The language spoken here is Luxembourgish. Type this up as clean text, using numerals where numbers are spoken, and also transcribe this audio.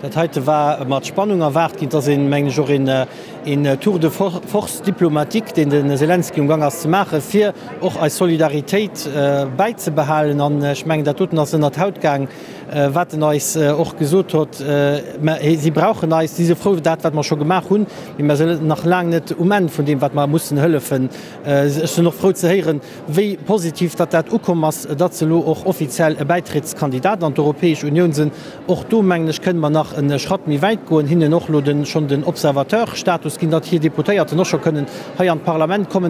Dat heite war mat Spannung erwaart ginn. Et ass een, mengen ech, och een Tour de force diplomatique, deen de Selenskyj um Gang ass ze maachen, fir och eis Solidaritéit bäizebehalen. An ech mengen, dat doten ass ënnert d'Haut gaang, wat en eis och gesot hott. Mä si brauchen eis, si si frou dat, wat mer scho gemaach hunn, mee mer sinn nach laang net um Enn vun deem, wat mer mussen hëllefen. Ech sinn och frou ze héieren, wéi positiv datt dat ukomm ass, datt se elo och offiziell e Bäitrittskandidat an d'Europäesch Unioun sinn. Och do, mengen ech, kënne mer nach e Schratt méi wäit goen, hinnen och elo schonn den Observateur-Status ginn, datt hir Deputéierten och scho kënnen hei an d'Parlament kommen.